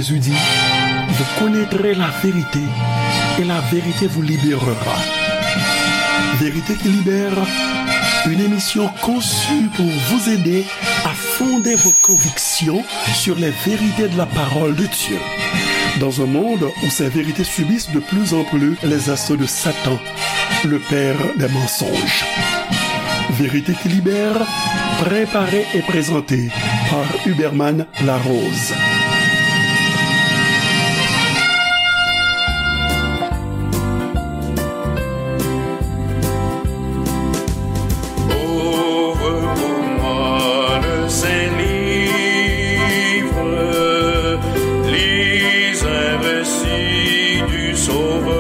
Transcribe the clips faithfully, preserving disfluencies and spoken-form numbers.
Jésus dit, vous connaîtrez la vérité et la vérité vous libérera. Vérité qui libère, une émission conçue pour vous aider à fonder vos convictions sur les vérités de la parole de Dieu. Dans un monde où ces vérités subissent de plus en plus les assauts de Satan, le père des mensonges. Vérité qui libère, préparée et présentée par Huberman Larose. Ouvre pour moi le saint livre, lis un récit du Sauveur.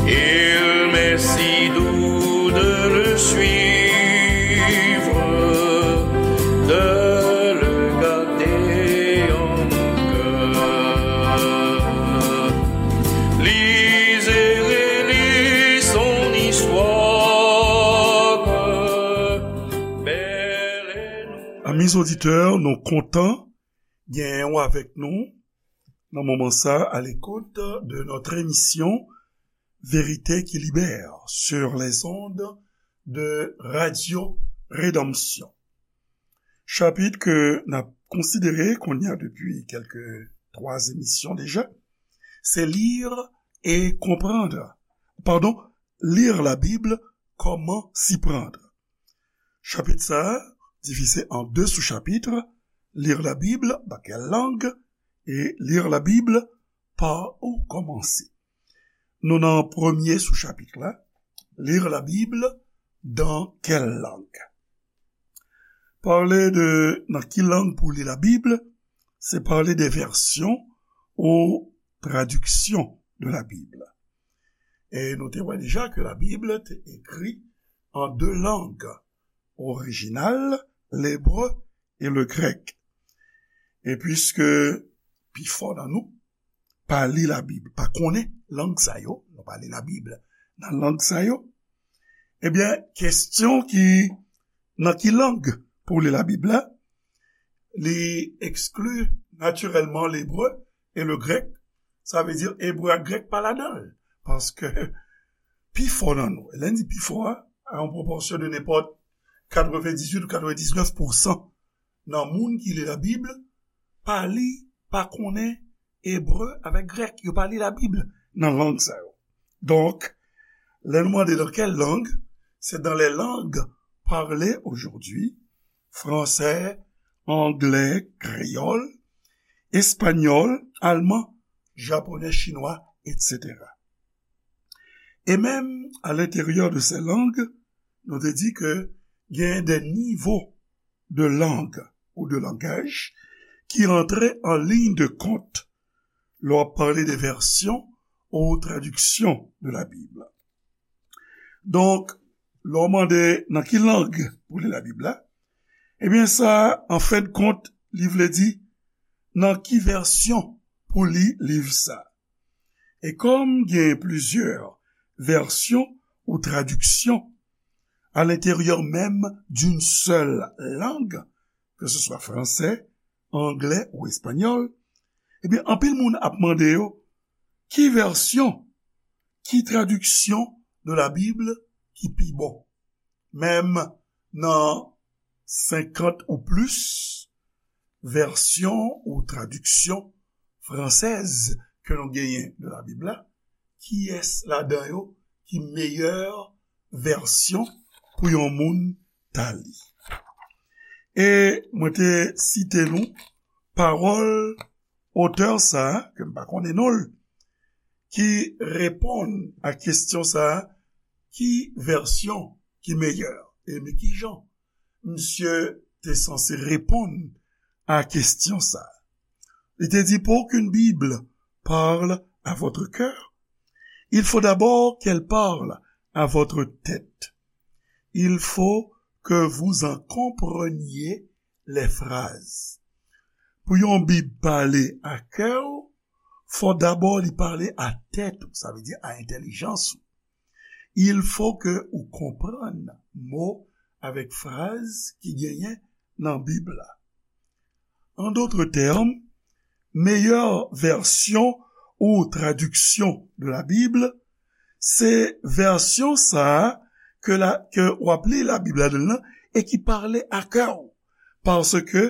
Il m'est si doux de le suivre, de le garder en mon cœur. Lis et relis son histoire, belle et nouvelle. Amis auditeurs, nou kontan genyen w avèk nou nan moman sa a, à l'écoute de notre émission Vérité qui libère sur les ondes de Radio Rédemption. Chapit ke n ap konsidere kounye a depi kèlke twa emisyon deja, se lire et comprendre. Pardon, lire la Bible, comment s'y prendre. Chapit sa a divize an de sou-chapitre, lire la Bible, dans quelle langue, et lire la Bible, par où commencer. Nou nan premye sou-chapit la, lire la Bible, dans quelle langue. Pale de nan ki lang pou li la Bib, se pale de vèsyon ou tradiksyon de la Bib. E nou te wè deja ke la Bib te ekri an de lang orijinal, lebre e le grèk. E piske pifò nan nou pa li la Bib, pa konnen lang sa yo, nou pa li la Bib nan lang sa yo, ebyen, kesyon ki, nan ki lang pou li la Bib la, li ekskli natirèlman lebre e le grèk, sa vle di ebre ak grèk pa ladan l, paske pifò nan nou, lè n di pifò a, a yon pwopòsyon de nenpòt katrevendizuit ou katrevendiznèf pousan nan moun ki li la Bib, pa li, pa konnen ebre avèk grèk. Yo pa li la Bib nan lang sa yo. Donk, lè nou mande dans quelle langue, c'est dans les langues parlées aujourd'hui, français, anglais, créole, espagnol, allemand, japonais, chinois, et cetera. E menm à l'intérieur de ces langues, nou te di ke gen de nivo de lang ou de langaj ki rantre an liy de kont lè w ap pale de vèsyon ou tradiksyon de la Bib. Donk, lè w mande nan ki lang pou li la Bib la, ebyen sa, an fen de kont, li vle di nan ki vèsyon pou li liv sa. E kòm gen plizyè vèsyon ou tradiksyon à l'intérieur même d'une seule langue, que ce soit français, anglais ou espagnol, ebyen, anpil moun ap mande yo, ki vèsyon, ki tradiksyon de la Bib ki pi bon? Menm nan senkant ou plis vèsyon ou tradiksyon fransèz ke nou genyen de la Bib la, kiyès ladan yo ki meyè vèsyon pou yon moun ta li? E mwen te site nou pawòl otè sa a, ke m pa konnen non l, ki reponn a kesyon sa a, ki vèsyon ki meyè? E men kijan misye te sanse reponn a kesyon sa a? Li te di, pour qu'une Bible parle à votre cœur, il faut d'abord qu'elle parle à votre tête. Il faut que vous en compreniez les phrases. Pou yon Bib pale a kè w, fò dabò li pale a tèt ou, sa vle di a entèlijans ou. Il faut que ou konprann mo avèk fraz ki genyen nan Bib la. En d'autres termes, meilleure version ou traduction de la Bible, se vèsyon sa a ke, la, ke w ap li Labib ladan l lan e ki pale a kè w, paske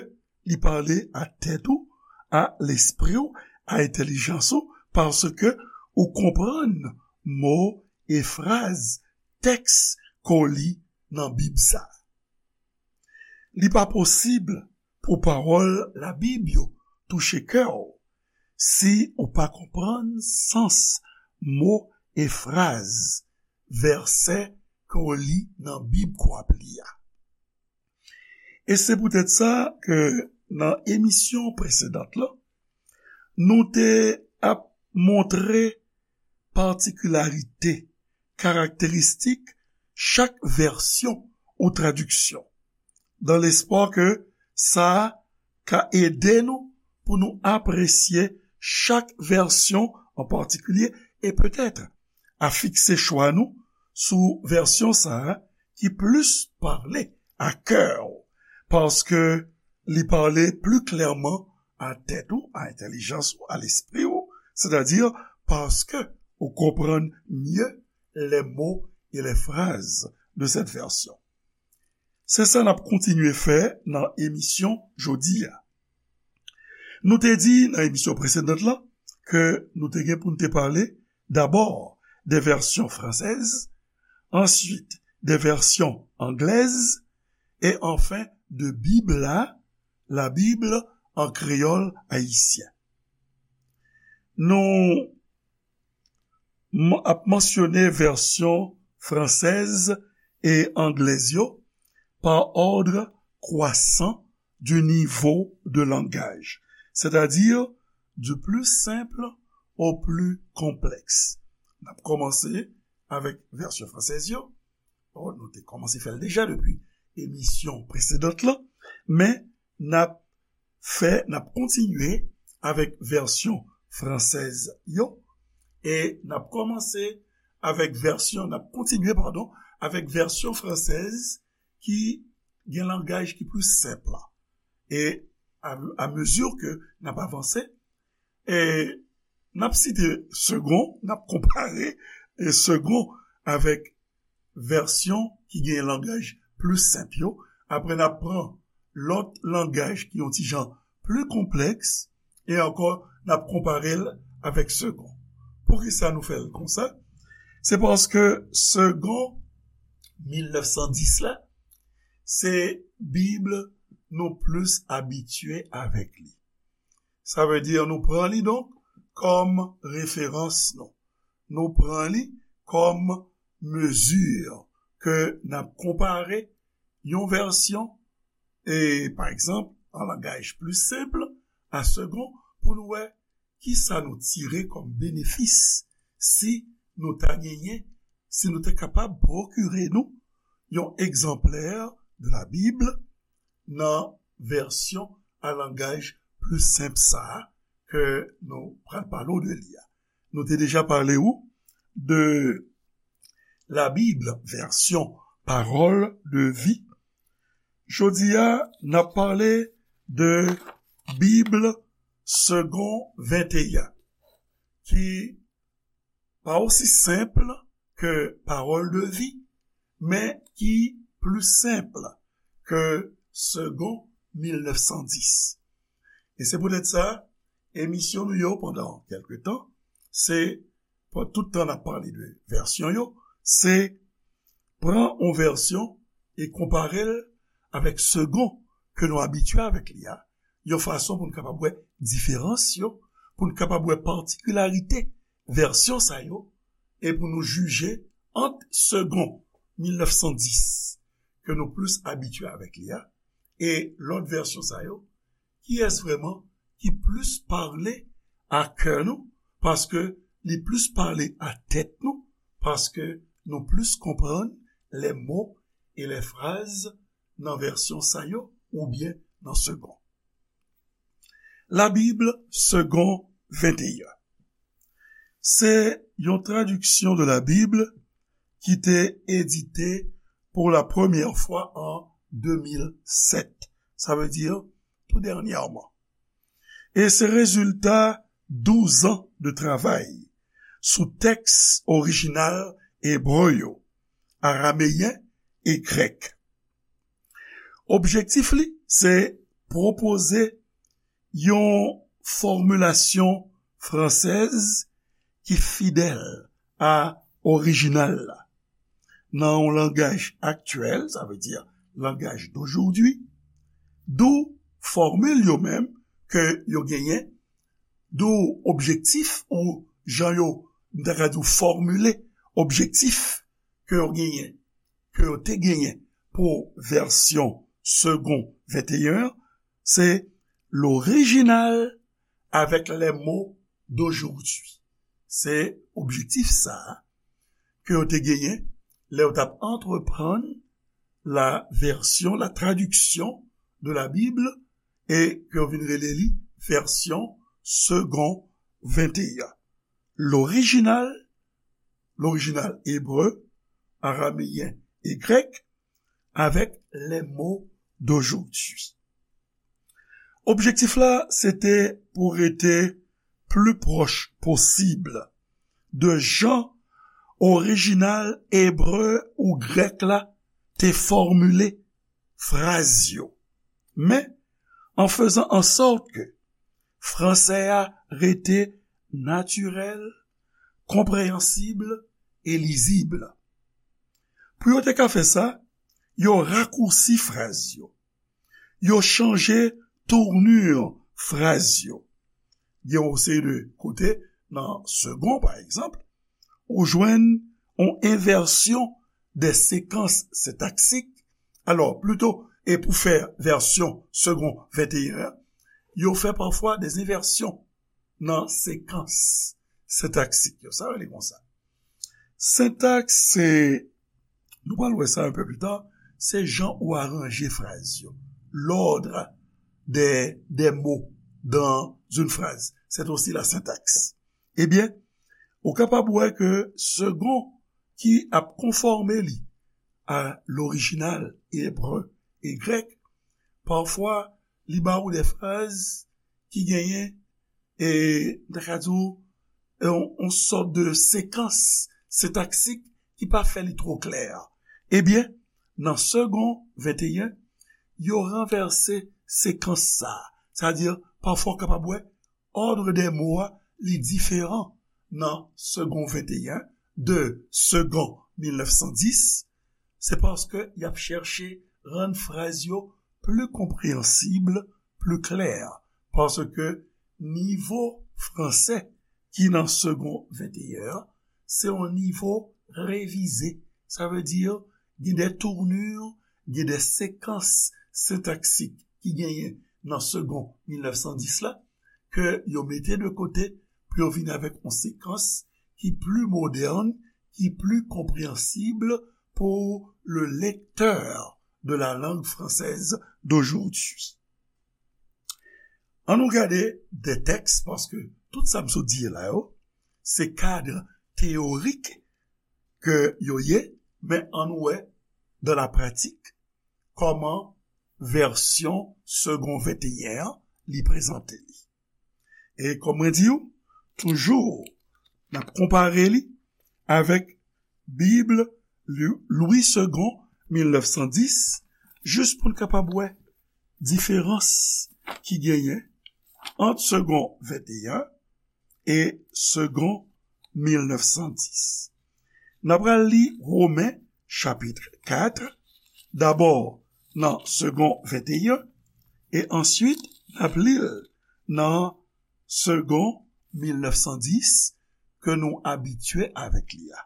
li pale a tèt ou, a lespri w, a entèlijans ou, paske ou konprann mo e fraz tèks ke w li nan Bib sa a. Li pa posib pou pawòl Labib yo touche kè w si ou pa konprann sans mo e fraz, vèsè ke w li nan Bib ke w ap li a. E se poutèt sa ke nan emisyon presedan lan, nou te ap montre patikilarite, karakteristik chak vèsyon ou tradiksyon, dans l'espoir ke sa ka ede nou pou nou apresye chak vèsyon an patikilye e petèt a fikse chwa nou sou vèsyon sa a ki plis pale a kè w, paske li pale pli klèman a tèt ou, a entèlijans ou, a lespri ou, sètadi paske ou konprann mye les mots et les phrases de cette version. Se sa n ap kontinye fè nan emisyon jodi a. Nou te di nan emisyon presedan lan ke nou te gen pou n te pale dabò de vèsyon fransèz, answit de vèsyon anglèz, e anfen de Bib la, la Bible en créole haïtien. Nou m-, ap mansyone vèsyon fransèz e anglèz yo par ordre croissant du niveau de langage, c'est-à-dire du plus simple au plus complexe. N ap kòmanse avèk vèsyon fransèz yo. Bon, nou te kòmanse fè l deja depi emisyon presedan lan, men n ap fè, n ap kontinye avèk vèsyon fransèz yo, e n ap kòmanse avèk vèsyon, n ap kontinye, padon, avèk vèsyon fransèz ki gen langaj ki pli senp la. E a, a mezi ke n ap avanse, e n ap site Segond, n ap konpare, e, Segond avèk vèsyon ki gen langaj pli senp yo. Apre, n ap pran lòt langaj ki yon ti jan pli konplèks, e ankò, n ap konpare l avèk Segond. Poukisa nou fè l konsa? Se paske Segond mil nèf san dis la, se Bib nou plis abitye avèk li. Sa vle di nou pran li donk kòm referans nou. Nou pran li kòm mezi ke n ap konpare yon vèsyon, e, pa egzanp, an langaj pli senp, a Segond, pou nou wè kisa nou tire kòm benefis si nou ta genyen, si nou te kapab pwokire nou yon egzanplè de la Bib nan vèsyon a langaj pli senp sa a ke nou pral pale w de li a. Nou te deja pale w de la Bib vèsyon Parole de vie. Jodi a, n ap pale de Bib Segond venteyen, ki pa osi senp ke Parole de vie, men ki pli senp ke Segond mil nèf san dis. E se poutèt sa, emisyon nou yo pandan kèlke tan, se, pandan tout tan n ap pale de vèsyon yo, se pran yon vèsyon e konpare l avèk Segond ke nou abitye avèk li a, yon fason pou n kapab wè diferans yo, pou n kapab wè patikilarite vèsyon sa yo, e pou nou jije ant Segond mil nèf san dis ke nou plis abitye avèk li a, e lòt vèsyon sa yo, kiyès vrèman ki plis pale a kè nou, paske li plis pale a tèt nou, paske nou plis konprann les mots et les phrases nan vèsyon sa yo oubyen nan Segond. La Bib Segond venteyen. Se yon tradiksyon de la Bib ki te edite pou la premyè fwa an de mil sèt. Sa vle di tou dènyèman. E se rezilta douz an de travay sou tèks orijinal ebre yo, arameyen e grèk. Objektif li se pwopoze yon fòmilasyon fransèz ki fidèl a orijinal la, nan yon langaj aktyèl, sa vle di langaj d'aujourd'hui, dou fòmil yo menm ke yo genyen, dou objektif ou jan yo, m ta ka di w, fòmile objektif ke yo genyen, ke yo te genyen pou vèsyon Segond venteyen an, se l'original avec les mots d'aujourd'hui. Se objektif sa a ke yo te genyen lè yo t ap antreprann la version, la traduction de la Bible, e ke yo vin rele li vèsyon Segond venteyen. L'original, l'original ebre, arameyen e grèk, avec les mots d'aujourd'hui. Objektif la, se te pou rete pli pwòch posib de jan orijinal ebre ou grèk la te fòmile fraz yo, men an fezan an sòt ke fransè a rete natirèl, konpreyansib e lizib. Pou yo te ka fè sa, yo rakousi fraz yo. Yo chanje tournure fraz yo. Gen yon seri de kote, nan Segond, pa egzanp, ou jwenn yon envèsyon de sekans sentaksik. Alò, plito, e pou fè vèsyon Segond venteyen an, yo fè pafwa de envèsyon nan sekans sentaksik yo. Sa yo rele konsa. Sentaks, se, nou pral wè sa un peu plus tard, se jan ou aranje fraz yo. L'ordre des, des mots dans une phrase. C'est aussi la syntaxe. Ebyen, ou kapab wè ke Segond ki ap konfòme li a lorijinal ebre e grèk, pafwa, li ba ou de fraz ki genyen, e, m ta ka di w, yon, yon sòt de sekans sentaksik ki pa fè li twò klè. Ebyen, nan Segond venteyen, yo ranvèse sekans sa a. Sa di, pafwa w kapab wè, òdre de mo a, li diferan nan Segond venteyen de Segond mil nèf san dis, se paske y ap chèche rann fraz yo pli konpreyansib, pli klè, paske nivo fransè ki nan Segond venteyen an, se yon nivo revize. Sa vle di, gen de tournure, gen de sekans sentaksik ki genyen nan Segond mil nèf san dis la, ke yo mete de kote pou yo vin avèk yon sekans ki pli modèn, ki pli konpreyansib pour le lecteur de la langue française d'aujourd'hui. An nou gade de tèks, paske tout sa m sot di la yo, se kad teyorik ke yo ye, men an nou wè, dans la pratique, kòman vèsyon Segond venteyen an, li prezante li. E kòm mwen di w, toujou, n ap konpare li avèk Bib Lwi, Lwi Segond mil nèf san dis, jis pou n kapab wè diferans ki genyen ant Segond venteyen e Segond mil nèf san dis. N ap pral li Women chapit kat, dabò nan Segond venteyen, e answit n ap li l nan Segond mil nèf san dis ke nou abitye avèk li a.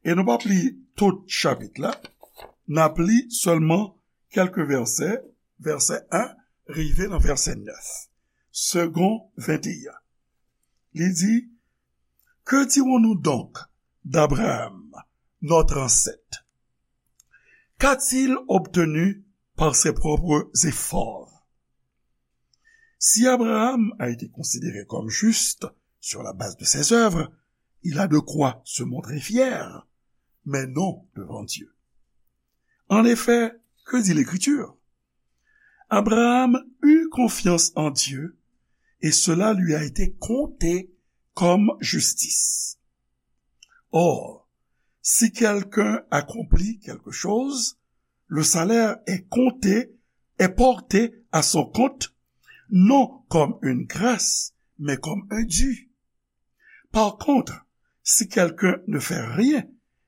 E nou p ap li tout chapit la, n ap li sèlman kèlke vèsè, vèsè en rive nan vèsè nèf. Segond venteyen. Li di, Que dirons-nous donc d'Abraham, notre ancêtre ? Qu'a-t-il obtenu par ses propres efforts ? Si Abraham a été considéré comme juste sur la base de ses œuvres, il a de quoi se montrer fier, mais non devant Dieu. En effet, que dit l'Écriture ? Abraham eut confiance en Dieu, et cela lui a été compté comme justice. Or, si quelqu'un accomplit quelque chose, le salaire est compté, est porté à son compte, non comme une grâce, mais comme un dû. Par contre, si quelqu'un ne fait rien,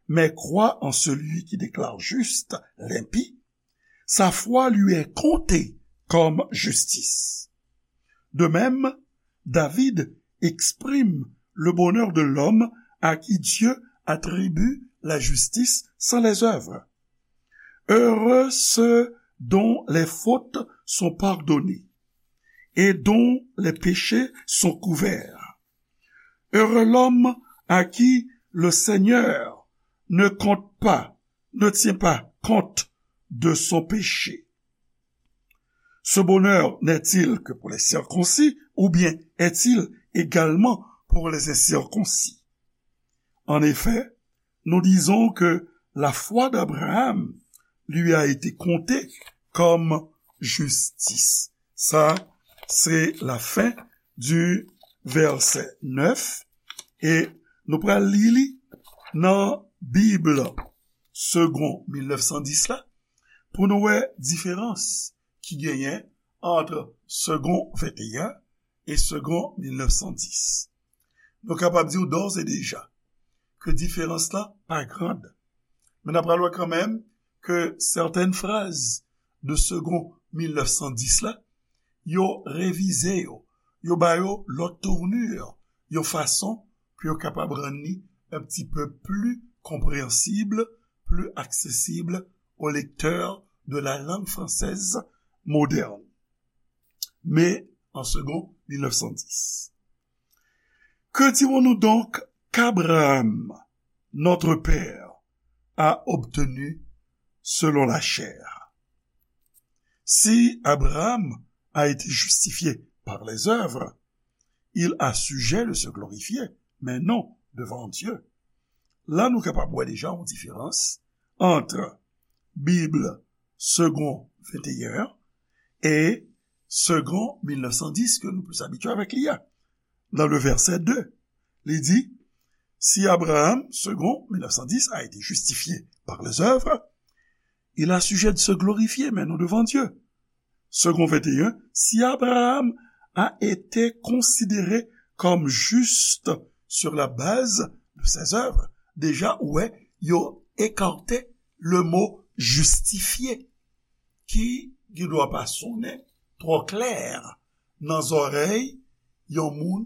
mais croit en celui qui déclare juste l'impie, sa foi lui est comptée comme justice. De même, David exprime le bonheur de l'homme à qui Dieu attribue la justice sans les œuvres. Heureux ceux dont les fautes sont pardonnées et dont les péchés sont couverts. Heureux l'homme à qui le Seigneur ne compte pas, ne tient pas compte de son péché. Ce bonheur n'est-il que pour les circoncis, ou bien est-il également pour les incirconcis? En effet, nous disons que la foi d'Abraham lui a été comptée comme justice. Sa, se lafen di vèsè nèf, e nou pral li li nan Bib Segond mil nèf san dis la, pou nou wè diferans ki genyen ant Segond venteyen e Segond mil nèf san dis. Nou kapab di w dòz e deja ke diferans la pa grand. Men n ap pral wè kanmenm ke sètèn fraz de Segond mil nèf san dis la, yo revize yo, yo ba yo lòt tournure, yon fason pou yo kapab rann li un petit peu plus compréhensible, plus accessible aux lecteurs de la langue française moderne. Mais en Segond mil nèf san dis. Que dirons-nous donc qu'Abraham, notre père, a obtenu selon la chair? Si Abraham a été justifié par les œuvres, il a sujet de se glorifier, mais non devant Dieu. La, nou kapab wè deja yon diferans ant Bib Segond venteyen e Segond mil nèf san dis ke nou plis abitye avèk li a. Dans le verset deux, li di, si Abraham, Segond mil nèf san dis, a été justifié par les œuvres, il a sujet de se glorifier, mais non devant Dieu. Segond venteyen, si Abraham a été considéré comme juste sur la base de ses œuvres, deja, ou wè, yo ekate le mo justifié, ki, ki dwa pa sonnen twò klè nan zòrèy yon moun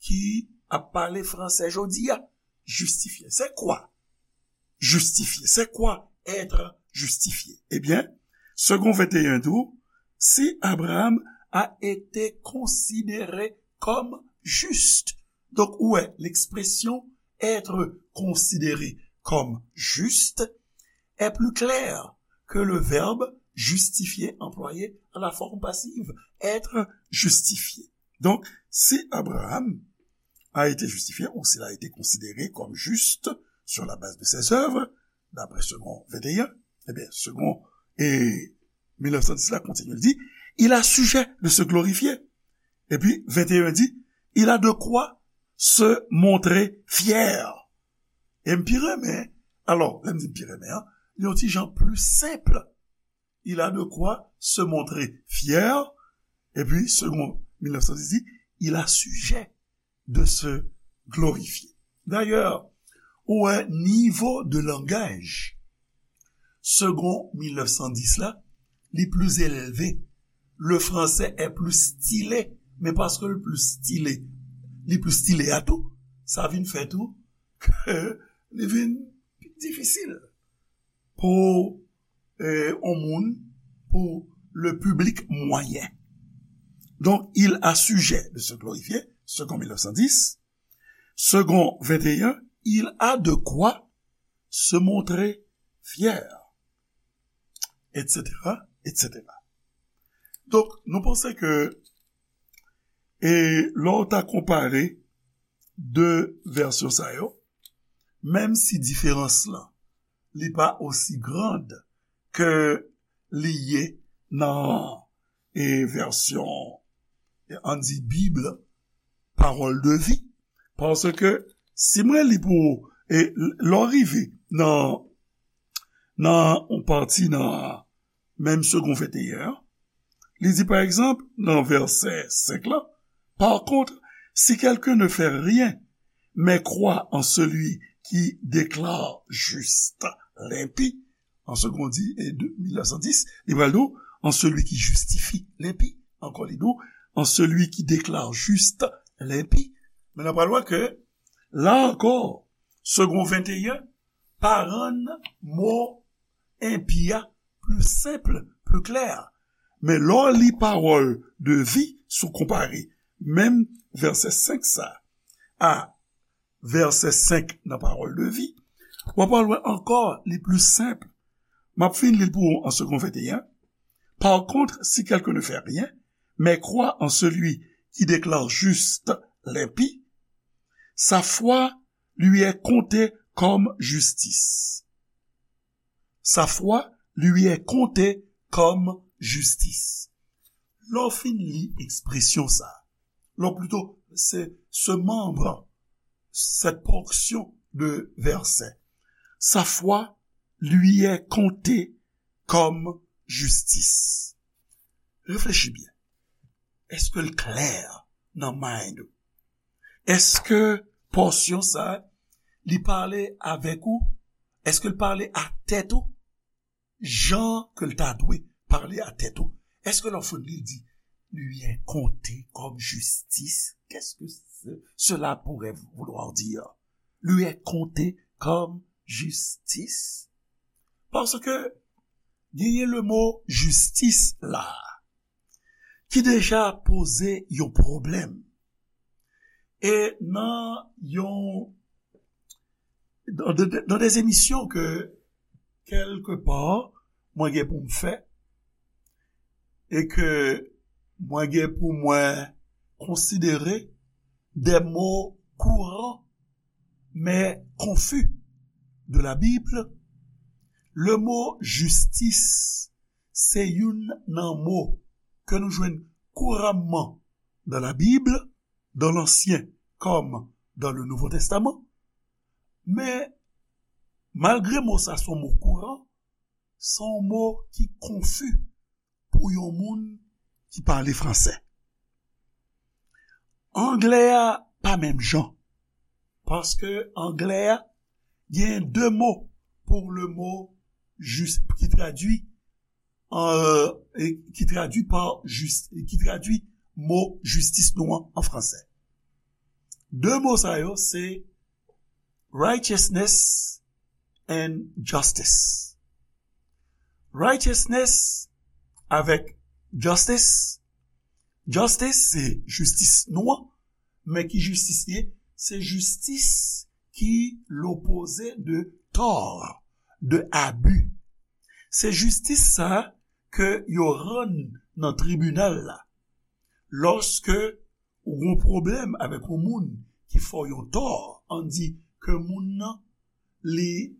ki ap pale fransè jodi a. Justifié, c'est quoi? Justifié, c'est quoi être justifié? Ebyen, Segond venteyen di w, si Abraham a été considéré comme juste. Donk, ou wè, l'expression être considéré comme juste est plus claire que le verbe justifié employé à la forme passive, être justifié. Donc, si Abraham a été justifié ou s'il a été considéré comme juste sur la base de ses œuvres, d'après Segond venteyen, ebyen, Segond e mil nèf san dis la kontinye, li di, il a sujet de se glorifier. Epi, venteyen di, il a de quoi se montrer fier. E m pi renmen, alò, lè m di m pi renmen an, li yon ti jan pli senp. Il a de quoi se montrer fier. Epi, Segond mil nèf san dis di, il a sujet de se glorifier. Dayè, ou wè nivo de langaj Segond mil nèf san dis la, li pli elve. Le français est plus stylé, men paske l pli style, li pli style a tou, sa vin fè tou ke li vin pi difisil pou, eh, yon moun, pou le public moyen. Donc, il a sujet de se glorifier, Segond mil nèf san dis. Segond venteyen, il a de quoi se montrer fier, et cetera, et cetera. Donk, nou panse ke, e lè w ta konpare de vèsyon sa yo, menm si diferans lan, li pa osi grand ke li ye nan e vèsyon, e ann di Bib, Parole de vie. Paske si mwen li pou ou, e lè w rive nan, nan yon pati nan menm Segond venteyen an, li di, pa egzanp, nan vèsè senk la, par contre, si quelqu'un ne fait rien, mais croit en celui qui déclare juste l'impie, an Segond di, e de, mil nèf san dis, li pral di w, en celui qui justifie l'impie. Ankò, li di w, en celui qui déclare juste l'impie. Men n ap pral wè ke, la ankò, Segond venteyen pa rann mo enpi a pli senp, pli klè. Men lè w li Parole de vie, si w konpare menm vèsè senk sa a vèsè senk nan Parole de vie, w ap pral wè ankò li pli senp. M ap fin li l pou ou an Segond venteyen. Par contre, si quelqu'un ne fait rien, mais croit en celui qui déclare juste l'impie, sa foi lui est comptée comme justice. Sa foi lui est comptée comme justice. Lè w fin li ekspresyon sa, lè w plito, se, ce membre, cette portion de verset, sa foi lui est comptée comme justice. Reflechi byen. Èske l klè nan mind ou? Èske pòsyon sa, li pale avèk ou? Èske l pale a tèt ou? Jan ke l ta dwe pale a tèt ou? Èske lè w fin li, li di, lui est comptée comme justice? Qu'est-ce que ce- cela pourrait vouloir dire? Lui est comptée comme justice? Paske genyen le mo jistis la, ki deja poze yon pwoblèm. E nan yon, dans de, dans des émissions que, quelque part, mwen gen pou m fè, e ke mwen gen pou mwen konsidere des mots courants, mais confus de la Bible, le mot justice, se youn nan mo ke nou jwenn kouramman dans la Bible, dans l'Ancien comme dans le Nouveau Testament. Men, malgre mo sa se yon mo kouran, se yon mo ki konfi pou yon moun ki pale fransè. Anglè a pa menm jan. Paske anglè a gen de mo pou le mo jis, ki tradui, euh, e ki tradui pa jis, e ki tradui mo jistis nou an, an fransè. De mo sa yo, se righteousness and justice. Righteousness avèk justice. Justice, se jistis nou an, men ki jistis li ye? Se jistis ki lopoze de tò, de abi. Se jistis sa ke yo rann nan tribinal la. Lòske ou gon pwoblèm avèk yon moun ki fè w yon tò, ann di ke moun nan, li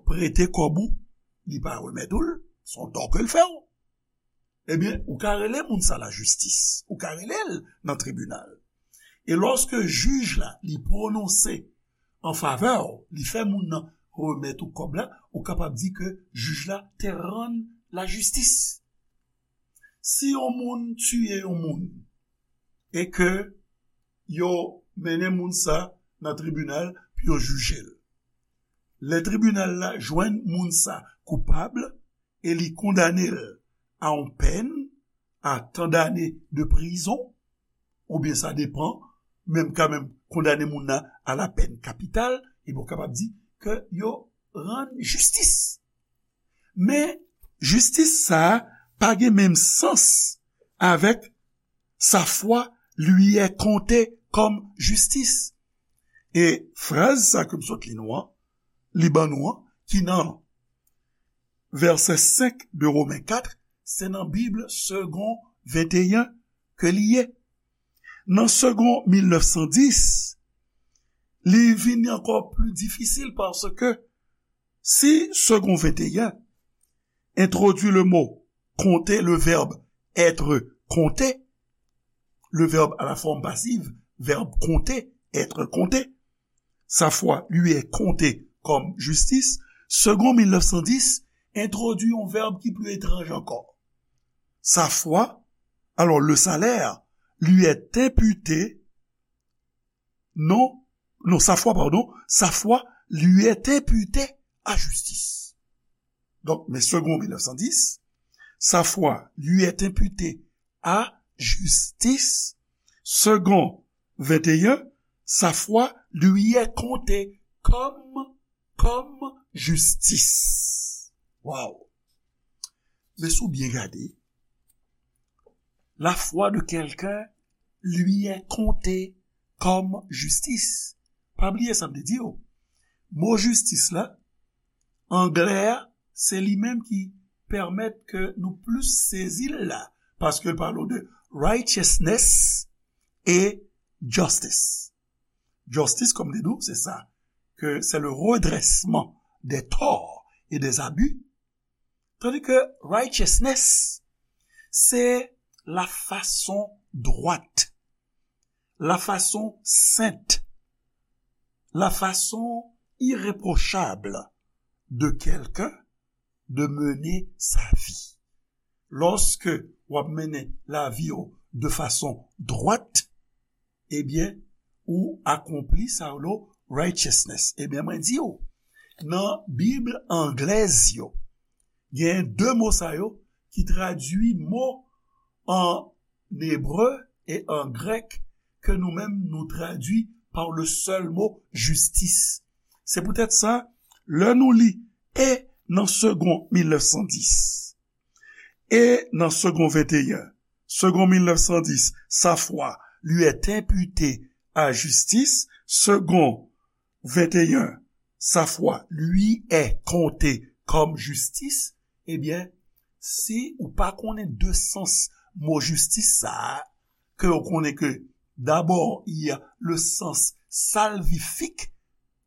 prete kòb ou, li pa remèt ou l, se yon tò ke l fè w. Ebyen, ou ka rele moun sa lajistis, ou ka rele l nan tribinal. E lòske jij la, li pwononse an favè w, li fè moun nan remèt ou kòb la, ou kapab di ke jij la te rann lajistis. Si yon moun tiye yon moun, e ke yo mennen moun sa nan tribinal pou yo jije l. Lè tribinal la jwenn moun sa koupab e li kondane l a yon pèn, a tan dane de prizon, oubyen sa depan, menm ka menm kondane moun nan a la pèn kapital, ebyen w kapab di ke yo rann jistis. Men, jistis sa a pa gen menm sans avèk sa foi lui est comptée comme justice. E fraz sa ke m sot li nou an, li ban nou an, ki nan vèsè senk de Women kat, se nan Bib Segond venteyen ke li ye. Nan Segond mil nèf san dis, li vini ankò pli difisil paske si Segond venteyen entwodui le mo compter, le verbe être compté, le verbe à la forme passive, verbe compter, être compté. Sa fwa lui est comptée comme justice. Segond mil nèf san dis entwodui yon vèb ki pli etranj ankò. Sa fwa, alors le salaire, lui est imputé, non, non, sa fwa, pardon, sa fwa lui est imputée à justice. Donk, men Segond mil nèf san dis, sa fwa lui est imputée à justice. Segond venteyen, sa fwa lui est comptée comme, comme justice. Wow! Men si w byen gade, la foi de quelqu'un lui est comptée comme justice. Pa bliye sa m te di w. Mo jistis la, anglè a, se li menm ki pèmèt ke nou plis sezi l la, paske l pale de righteousness e justice. Justice, kòm m te di w, se sa, ke c'est le redressement des torts et des abus, tandis que righteousness, c'est la façon droite, la façon sainte, la façon irréprochable de quelqu'un de mener sa vie. Lòske w ap mennen lavi w de fason dwat, ebyen, ou akonpli sa yo relo righteousness. Ebyen, mwen di w, nan Bib anglèz yo, gen de mo sa yo ki tradui mo an ebre e an grèk ke nou menm nou tradui pa le sèl mo jistis. Se poutèt sa, lè nou li e nan Segond mil nèf san dis, e nan Segond venteyen, Segond mil nèf san dis, sa foi lui est imputée à justice, Segond venteyen, sa foi lui est comptée comme justice, ebyen, si ou pa konnen de sans mo jistis sa a, ke ou konnen ke dabò, il y a le sens salvifique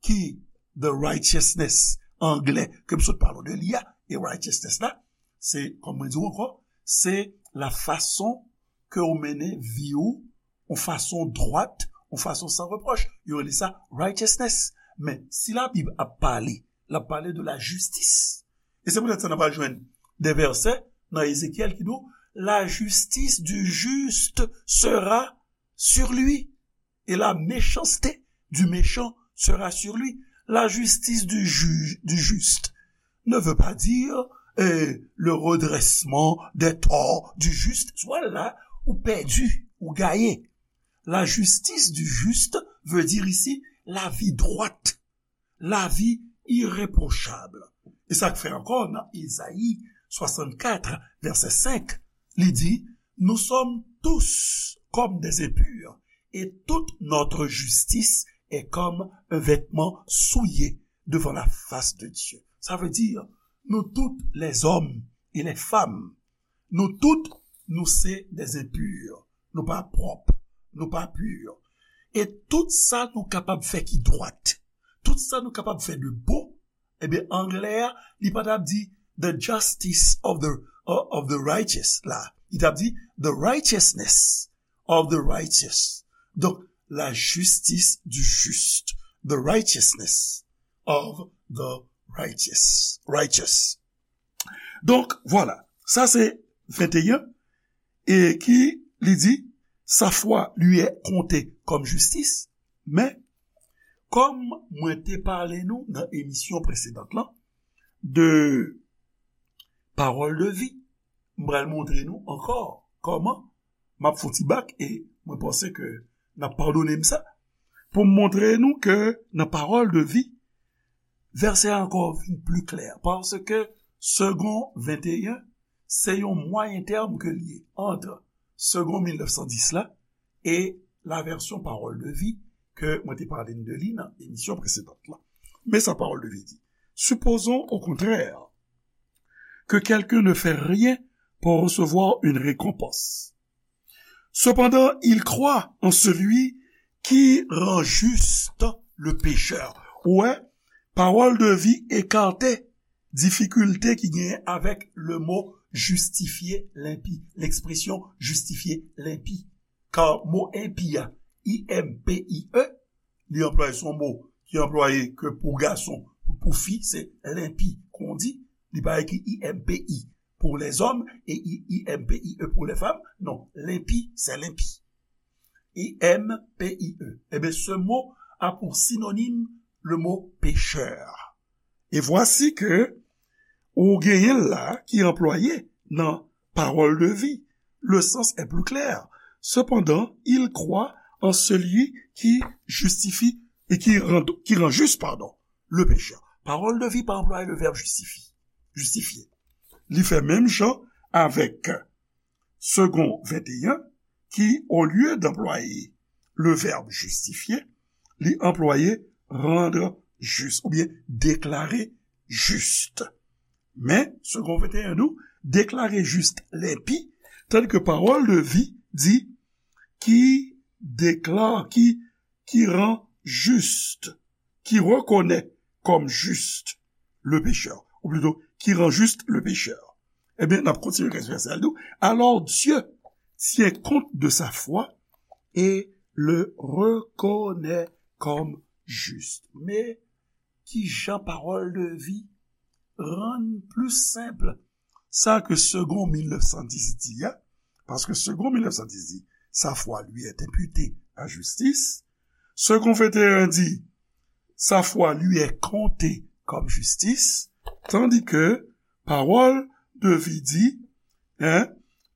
ki the righteousness anglè ke m sot pale w de li a, e righteousness la, se, kòm mwen di w ankò, se la fason ke w mennen vi w, yon fason dwat, yon fason san repwòch. Yo rele sa righteousness. Men, si Labib ap pale, l ap pale de la jistis. E se poutèt sa n ap al jwenn de vèsè nan Ezekyèl ki di w, la justice du juste sera sur lui, et la méchanceté du méchant sera sur lui. La justice du ju-, du juste ne veut pas dire, euh, le redressement des torts du juste. Soit là, ou pèdi, ou gaye. La justice du juste veut dire ici la vie droite, la vie irréprochable. E sa k fè ankò nan Ezayi swasannkat, vèsè senk, li di, nous sommes tous comme des impurs, et toute notre justice est comme un vêtement souillé devant la face de Dieu. Sa vle di, nou tout, les hommes et les femmes, nou tout, nou se des impurs. Nou pa pwòp, nou pa pur. E tout sa nou kapab fè ki dwat, tout sa nou kapab fè de bon, ebyen, anglè a, li pa t ap di the justice of the, of the righteous la. Li t ap di the righteousness of the righteous. Donk, la justice du juste, the righteousness of the righteous. Righteous. Donk, vwala. Sa se venteyen, e ki li di, sa foi lui est comptée comme justice, men, kòm mwen te pale nou nan emisyon presedan lan, de pawòl de vi, m pral montre nou ankò kòman m ap fè yon ti bak, e mwen panse ke n ap padone m sa, pou m montre nou ke nan pawòl de vi, vèsè a ankò vin pli klè, paske Segond venteyen, se yon mwayen tèm ke l ye ant Segond mil nèf san dis la e la vèsyon pawòl de vi ke mwen te pale n de li nan emisyon presedan lan. Men sa pawòl de vi di. Supposons au contraire que quelqu'un ne fait rien pour recevoir une récompense. Cependant, il croit en celui qui rend juste le pécheur. Ou wè, pawòl de vi ekate difikilte ki genyen avèk le mo jistifye lenpi. Lekspresyon jistifye lenpi. Ka mo enpi a, I M P I E, li anplwaye, se yon mo ki anplwaye ke pou gason, pou fi, se lenpi, kon di, li pa ekri I M P I pour les hommes et I M P I E pour les femmes. Non, lenpi, se lenpi. I M P I E. Ebyen, ce mot a pour synonyme le mot pécheur. Et voici que ou genyen l la ki anplwaye nan parole de vie. Le sens est plus clair. Cependant, il croit en celui qui justifie et qui rend, qui rend juste, pardon, le pécheur. Parole de vie pa anplwaye le verbe justifier. Justifier. Li fè menm jan avèk Segond venteyen, ki, olye d anplwaye le verbe justifier, li anplwaye rendre juste oubyen déclarer juste. Men, Segond venteyen di w, déclarer juste lenpi, tandis que parole de vie di, qui déclare, qui, qui rend juste, qui reconnaît comme juste le pécheur, ou plutôt, qui rend juste le pécheur. Ebyen, n ap kontinye nan vèsè a, li di, alors Dieu tient compte de sa foi et le reconnaît comme juste. Men, ki jan parole de vie rann pli senp sa ke Segond mil nèf san dis di a, paske Segond mil nèf san dis di, sa foi lui est imputée à justice. Segond venteyen di, sa foi lui est comptée comme justice, tandis que parole de vie di, hein,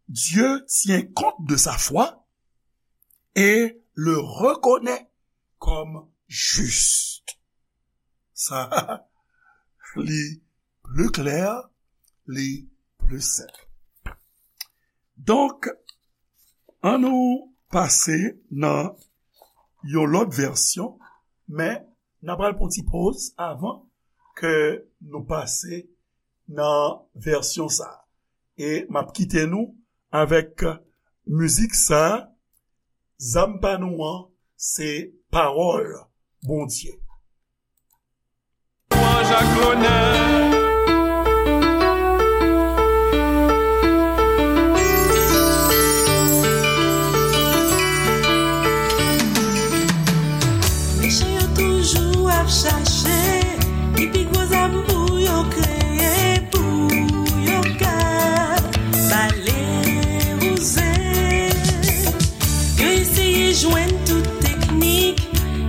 Dieu tient compte de sa foi et le reconnaît comme juste. Sa, li pli klè, li pli senp. Donk, ann nou pase nan yon lòt vèsyon, men n a pral pran ti poz avan ke nou pase nan vèsyon sa a. E m ap kite nou avèk mizik sa a, Zam pa nou an, se pawòl Bondye. Lwanj ak lonè. Mechan yo toujou ap chache ki pi gwo zam pou yo kreye, pou yo ka pale wouze. Yo eseye jwenn tout teknik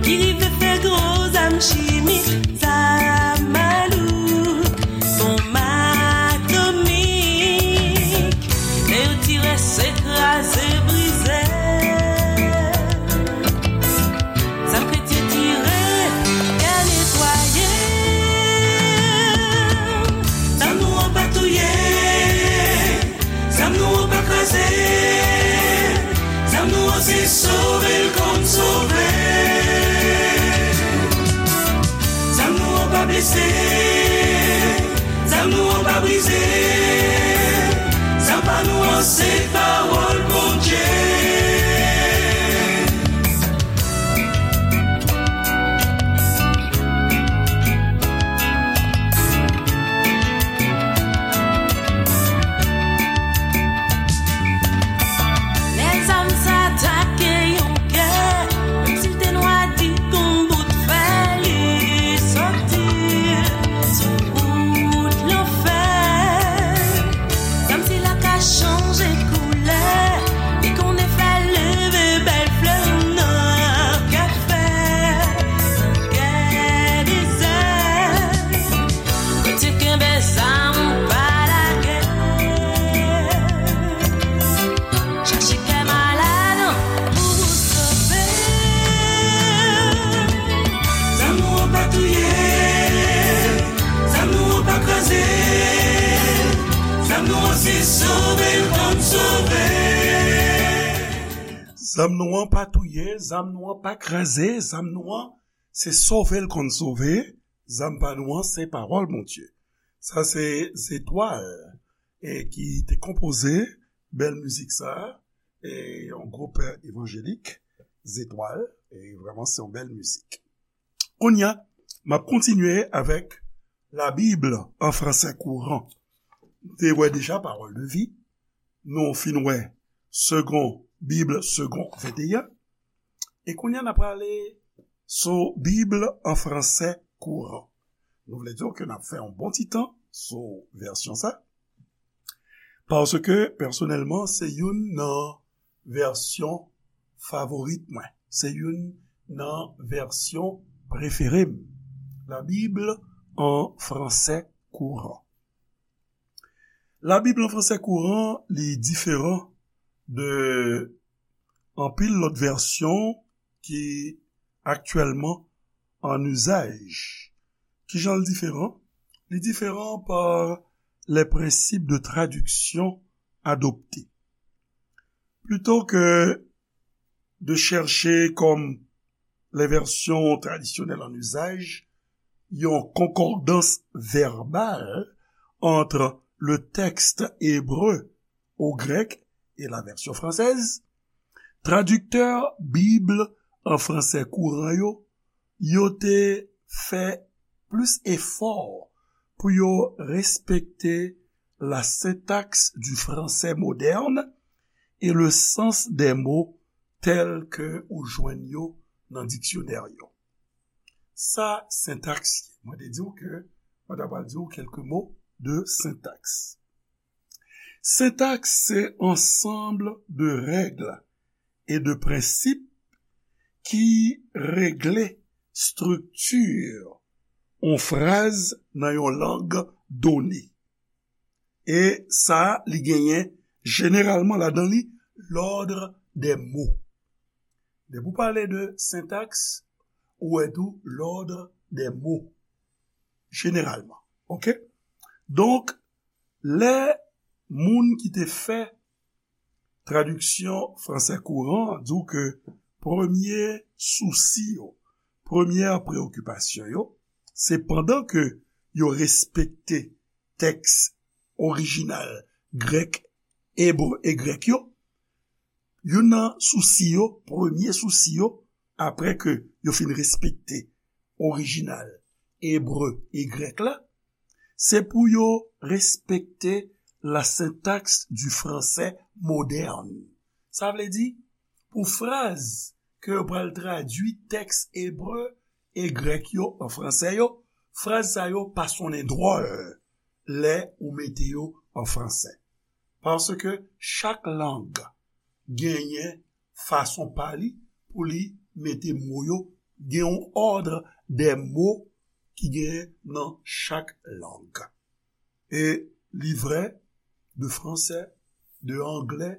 ki rive fè gwo zam chimik, zam malouk, bonm atomik. Lè yo tire, se kraze, brize. Zam kretyen tire, kè netwaye. Zam nou an pa touye, zam nou an pa kraze, zam nou an se sove l konn sove. Zam nou an pa blese, zam nou an pa brize, zam pa nou an se pawòl Bondye. Lè zam sa atake yon kè, menm si l te nwa di kon bout fè, li soti sou wout lanfè. Zam sila ka chanje koulè, li konnen fè leve bèl flè nan kè fè, nan kè dezè. Kretyen kenbe zam pa lage. Chache kè malad pou ou sove. Zam nou an pa touye, zam nou an pa kraze, zam nou an se sove l konn sove. Zam nou an pa touye, zam nou an pa kraze, zam nou an se sove l konn sove, zam pa nou an se pawòl Bondye. Sa se Zetwal, e ki te konpoze bèl mizik sa, e yon gwoup evanjelik, Zetwal, e vrèman se yon bèl mizik. Kounye a, m ap kontinye avèk La Bible en français courant. te wè deja Parole de vie, nou fin wè Segond, Bib Segond venteyen, e kounye a n a prale sou Bib an fransè kouran. Nou vle di ke n ap fè yon bon ti tan sou vèsyon sa, paske pèsonèlman, se youn nan vèsyon favorit mwen. Se youn nan vèsyon prefere m. La Bible en français courant. La Bible en français courant, li diferan de anpil lòt vèsyon ki aktyèlman an izaj. Kijan l diferan? Li diferan pa les principes de traduction adoptés. Plutôt que de chercher, comme les versions traditionnelles en usage, une concordance verbale entre le texte hébreu au grec et la version française, tradiktè Bib an fransè kouran yo, yo te fè plis efò pou yo respekte la syntaxe du français moderne et le sens des mots tels que ou jwenn yo nan diksyonè yo. Sa sentaks ye. Mwen te di w ke mwen ta pral di w kèlke mo de sentaks. Sentaks se ansanm de règ e de prensip ki regle estrikti yon fraz nan yon lang done. E sa, li genyen jeneralman ladan li l'ordre des mots. Depi w pale de sentaks, ou wè tou l'ordre des mots. Jeneralman. Oke? Donk, lè moun ki te fè tradiksyon fransè kouran an di w ke premye sousi yo, premyè preokipasyon yo, se pandan ke yo respekte tèks orijinal grèk, ebre e grèk yo, youn nan sousi yo, premye sousi yo, apre ke yo fin respekte orijinal ebre e grèk la, se pou yo respekte la syntaxe du français moderne. Sa vle di, pou fraz ke yo pral tradui tèks ebre e grèk yo an fransè yo, fraz sa yo pa sonnen dwòl lè ou mete yo an fransè. Paske chak lang genyen fason pa li pou li mete mo yo, gen yon ordre des mots ki genyen nan chak lang. E li vrè de fransè, de anglè,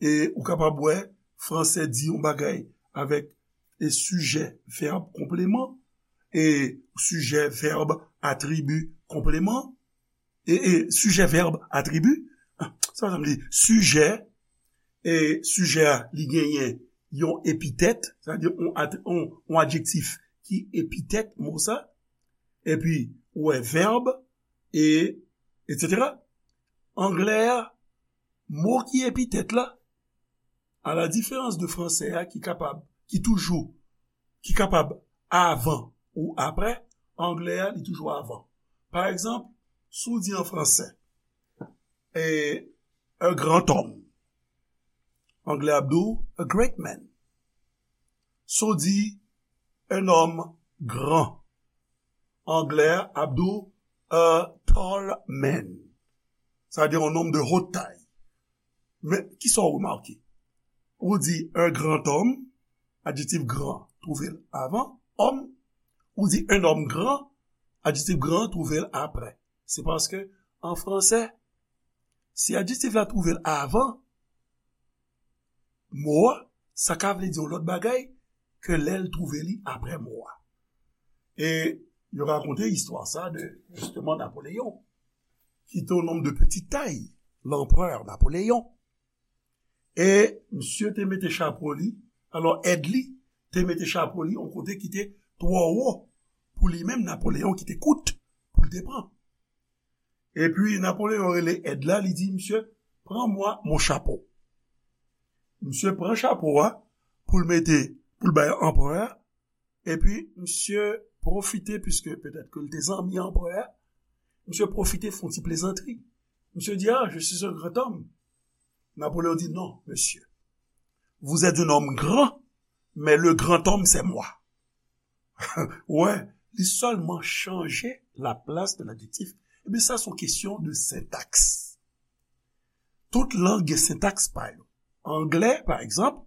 e ou kapab wè fransè di yon bagay avèk e sijè, vèb, konpleman, e sijè, vèb, atribi, konpleman, e, e sijè, vèb, atribi, ah, sa sa m di, sijè, e sijè a, li genyen yon epitèt, sa di yon, at- yon, yon adjektif ki epitèt mo sa, epi ou wè vèb, e, etsetera. Anglè a, mo ki epitèt la, a la diferans de fransè a ki kapab, ki toujou, ki kapab avan ou apre, anglè a, li toujou avan. Pa egzanp, si w di an fransè, e, un grand homme, anglè ap di w a great man. Si w di un homme grand, anglè a ap di w a tall man. Sa vle di yon nonm de haute taille. Men, kisa w remake? Ou di un grand homme, adjektif grand, twouve l avan, homme. Ou di un homme grand, adjektif grand, twouve l apre. Se paske, an fransè, si adjektif la twouve l avan mo a, sa ka vle di yon lòt bagay ke lè l twouve li apre mo a. E yo rakonte istwa sa de, jisteman, Napoleyon, ki te yon nonm de petite taille, l'empereur Napoléon. E misye te mete chapo li, alò èd li te mete chapo li yon kote ki te twò wo pou li menm, Napoleyon, ki te kout pou l te pran. Epi Napoleyon rele èd la, li di, "Monsieur, prends-moi mon chapeau." Misye pran chapo a pou l mete, pou l bay anperè a, epi misye pwofite, piske petèt ke l te zanmi anperè a, misye pwofite fè yon ti plezantri. Monsieur dit, ah, je suis un grand homme. Napoléon dit, non, monsieur. Vous êtes un homme grand, mais le grand homme, c'est moi. Wè, li sèlman chanje la plas de ladjektif. Ebyen, sa se yon kesyon de sentaks. Tout lang gen sentaks pa yo. Anglè, pa egzanp,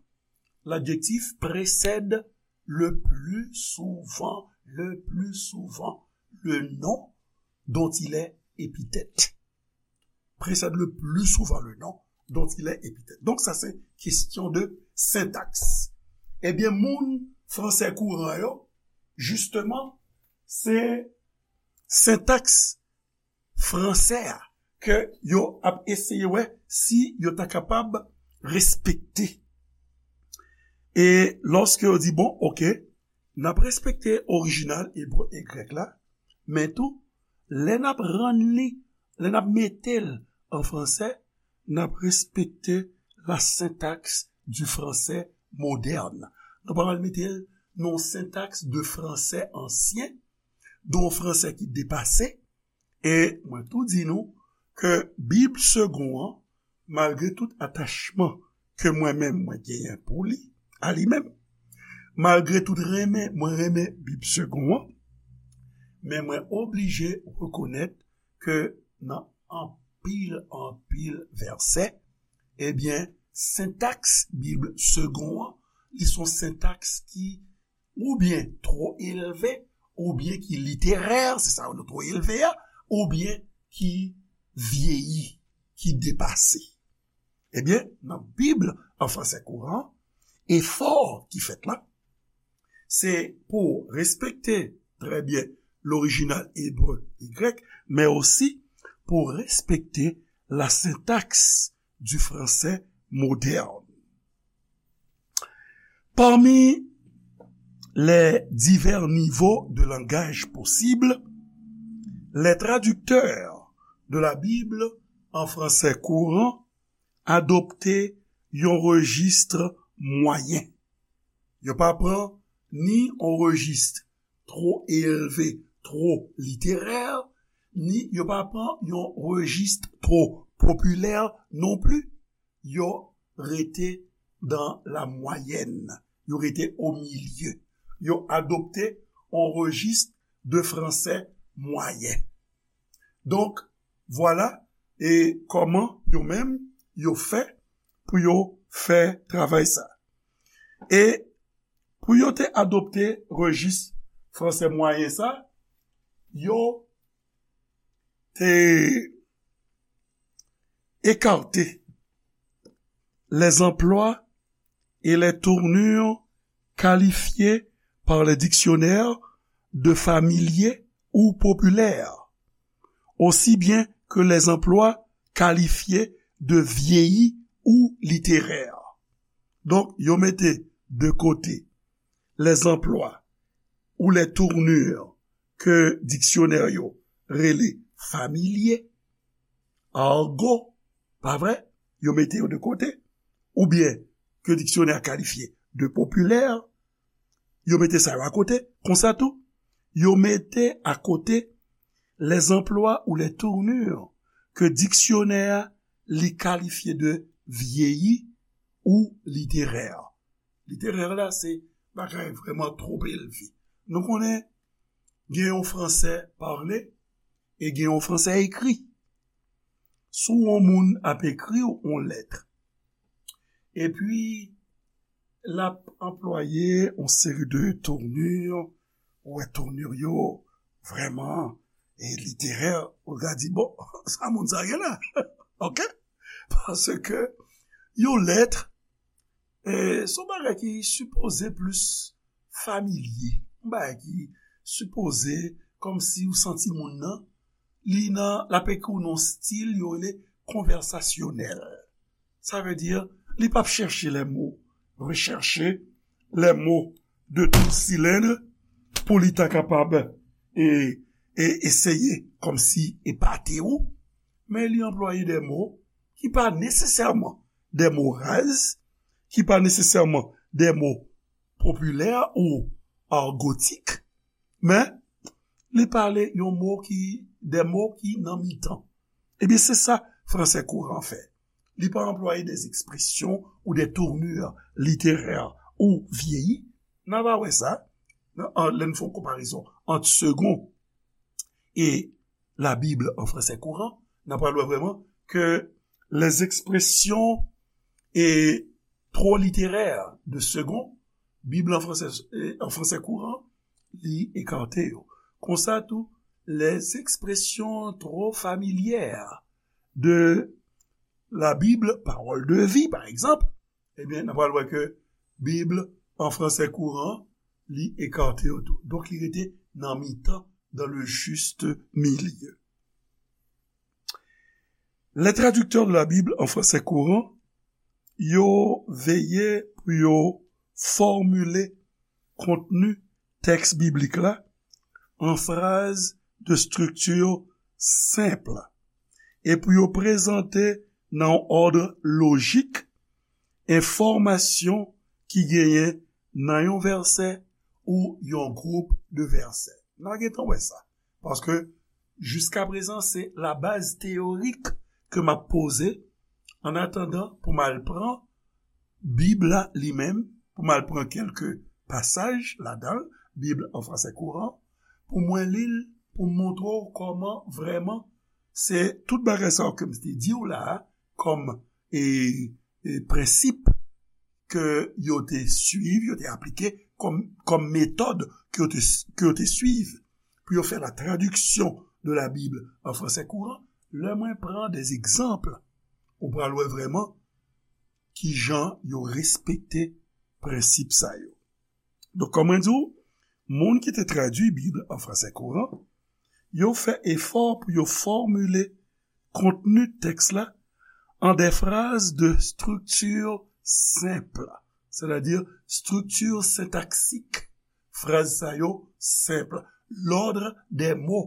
l'adjectif précède le plus souvent, le plus souvent, le nom dont il est épithète. Précède le plus souvent le nom dont il est épithète. Donk, sa se kesyon de sentaks. Ebyen, moun fransè kouran yo, jisteman, se sentaks fransè a ke yo ap eseye wè si yo ta kapab respekte. E lòske yo di, bon, oke, n ap respekte orijinal ebre e grèk la, men tou, lè n ap rann li, lè n ap mete l an fransè, n ap respekte la syntaxe du français moderne. Nou pa pral mete l nan yon sentaks de fransè ansyen, de yon fransè ki depase, e mwen tou di nou ke Bib Segond an, malgre tout atachman ke mwen menm mwen genyen pou li, a li menm, malgre tout renmen mwen renmen Bib Segond an, men mwen oblije rekonèt ke nan anpil, anpil vèsè, ebyen, sentaks Bib Segond an, li se yon sentaks ki oubyen twò elve, oubyen ki literè, se sa yo rele twò elve a, oubyen ki vyeyi, ki depase. Ebyen, nan Bib an fransè kouran, efò ki fèt la, se pou respekte trè byen lorijinal ebre e grèk, men osi pou respekte la syntaxe du français moderne. Parmi les divers niveaux de langage possibles, les traducteurs de la Bible en français courant adopte yon rejis mwayen. Yo pa pran ni yon rejis twò elve, twò literè, ni yo pa pran yon rejis twò popilè non pli. Yo rete dans la moyenne. Yo rete au milieu. Yo adopte yon rejis de fransè mwayen. Donk, vwala, e kòman yo menm, yo fè pou yo fè travay sa. E pou yo te adopte rejis fransè mwayen sa, yo te ekate les emplois et les tournures qualifiés par les dictionnaires de familier ou populaire, aussi bien que les emplois qualifiés de vieilli ou littéraire. Donk, yo mete de kote les emplois ou les tournures ke diksyonè yo rele familier, argot, pa vre? Yo mete yo de kote, oubyen ke diksyonè a kalifye de popilè, yo mete sa yo akote. Konsa tou, yo mete akote les emplois ou les tournures ke diksyonè a li kalifye de vieilli ou littéraire. Literè la, se bagay vrèman twò elve. Nou konnen gen yon fransè pale e gen yon fransè ekri. Si yon moun ap ekri w yon lèt, epi l ap anplwaye yon seri de tournure, ou wè tournure yo vrèman e literè, ou ka di, bon, sa moun sa gen la. Oke? Paske yon lèt, e, se yon bagay ki sipoze plis familye. Yon bagay ki sipoze kòmsi ou santi moun nan, li nan, l ap ekri w nan yon stil yo rele konvèsasyonèl. Sa vle di, li p ap chèche les mots, rechercher les mots de tout cylindre pou li ta kapab e, e eseye kòmsi epate w, men li anplwaye de mo ki pa nesesèman de mo raz, ki pa nesesèman de mo popilè ou argotik, men li pale yon mo ki, de mo ki nan mitan. Ebyen, se sa fransè kouran fè. Li pa anplwaye des expressions ou des tournures littéraires ou vyeyi. N a va wè sa nan, an, lè n fè yon konparezon ant Segond e la Bible en français courant, n a pral wè vrèman ke les expressions et trop littéraires de Segond, Bib la an fransè, eh, an fransè kouran, li ekate yo. Konsa tou, les expressions trop familières de la Bible, Parole de vie, pa egzanp, ebyen, n a pral wè ke Bib an fransè kouran, li ekate yo tou. Donk, li rete nan mitan, dans le juste milieu. Les traducteurs de la Bible en français courant, yo veye pou yo fòmile kontni tèks biblik la an fraz de strikti senp e pou yo prezante nan yon òd lojik enfòmasyon ki genyen nan yon vèsè ou yon gwoup de vèsè. N a gentan wè sa. Paske, jiskaprezan, se la baz teyorik ke m ap poze, an atandan pou m al pran Bib la li menm, pou m al pran kèlke pasaj ladan l, Bib an fransè kouran, pou mwen li l, pou m montre w kòman vrèman se tout bagay sa yo ke m te di w la a, kòm, e, e, prensip ke yo te suiv, yo te aplike kòm, kòm metòd ke yo te, ke yo te suiv pou yo fè la traduction de la Bible en français courant, lè mwen pran des exemples, ou pral wè vrèman ki jan yo respekte prensip sa yo. Donk, kòm mwen di w, moun ki te tradui Bib an fransè kouran, yo fè efò pou yo fòmile kontni tèks la an de fraz de strikti senp, sètadi strikti sentaksik. Fraz sa yo senp. Lòd de mo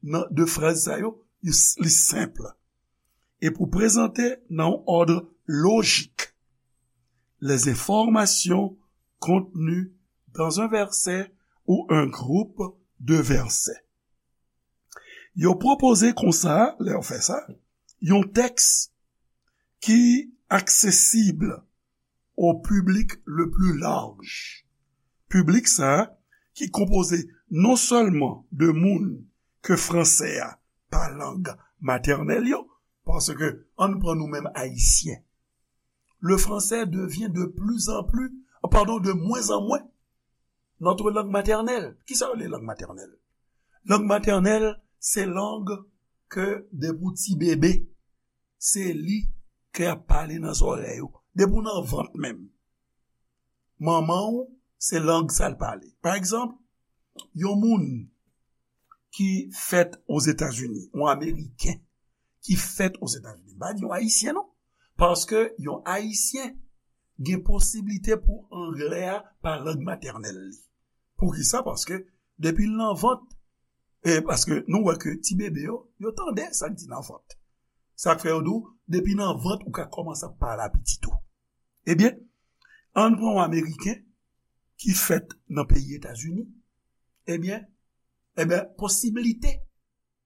nan, de fraz sa yo, li, li senp. E pou prezante nan yon òd lojik les informations contenues dans un verset ou un groupe de versets. Yo pwopoze konsa, lè yo fè sa, yon tèks ki aksesib au public le plus large. Piblik sa a, ki konpoze non sèlman de moun ke fransè a pa lang matènèl yo, paske ann pran nou menm Ayisyen. Le français devient de plus en plus, pardon, de moins en moins, notre langue maternelle. Kisa yo rele lang matènèl? Lang matènèl, se lang ke depi w ti bebe, se li ke y ap pale nan zòrèy ou. Depi w nan vant menm, manman w, se lang sa l pale. Pa egzanp, yon moun ki fèt Ozetazini, yon Ameriken ki fèt Ozetazini, m pa di yon Ayisyen non, paske yon Ayisyen gen posiblite pou anglè a pa lang matènèl li. Poukisa? Paske depi l nan vant, e paske nou wè ke ti bebe yo, yo tande sa k di nan vant. Sa k fè yo di w, depi nan vant ou ka kòmanse ap pale a pitit ou. Ebyen, ann pran yon Ameriken ki fèt nan peyi Etazini, ebyen, ebyen, posiblite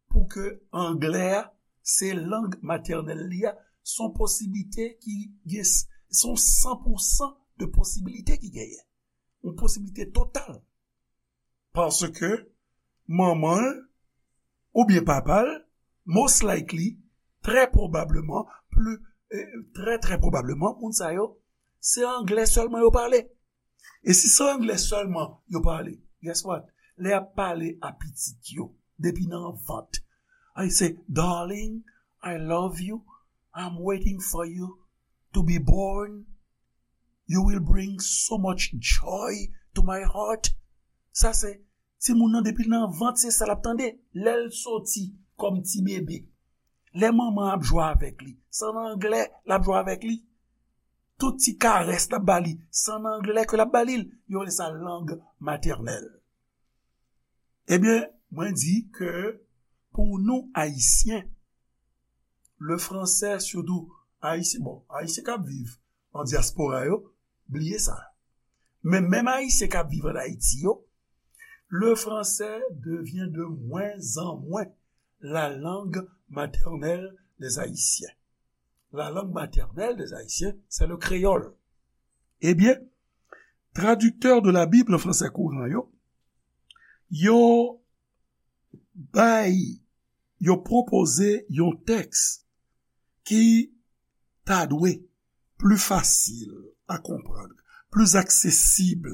pou ke anglè a se lang matènèl li a, se yon posiblite ki gen, se yon san pou san de posiblite ki genyen. Yon posiblite total. Paske manman l oubyen papa l, most likely, trè pwobableman, pli, eh, trè, trè pwobableman, moun sa yo, se anglè sèlman yo pale. E si se anglè sèlman yo pale, guess what? Lè y ap pale a pitit yo, depi nan vant, I say, "Darling, I love you. I'm waiting for you to be born. You will bring so much joy to my heart." Sa se timoun nan, depi l nan vant, se sa l ap tande. Lè l soti kòm ti bebe, lè manman ap jwe avèk li, se an anglè l ap jwe avèk li. Tout ti karès l ap ba li, se an anglè ke l ap ba li l. Yo rele sa lang matènèl. Ebyen, mwen di ke pou nou Ayisyen, le français, sitou Ayisyen, bon, Ayisyen k ap viv an dyaspora yo, bliye sa. Men menm Ayisyen k ap viv an Ayiti yo, le français devient de moins en moins la langue maternelle des Haïtiens. La langue maternelle des Haïtiens, c'est le créole. Ebyen, tradiktè de la Bible an fransè kouran yo, yo bay, yo pwopoze yon tèks ki ta dwe pli fasil a konprann, pli aksesib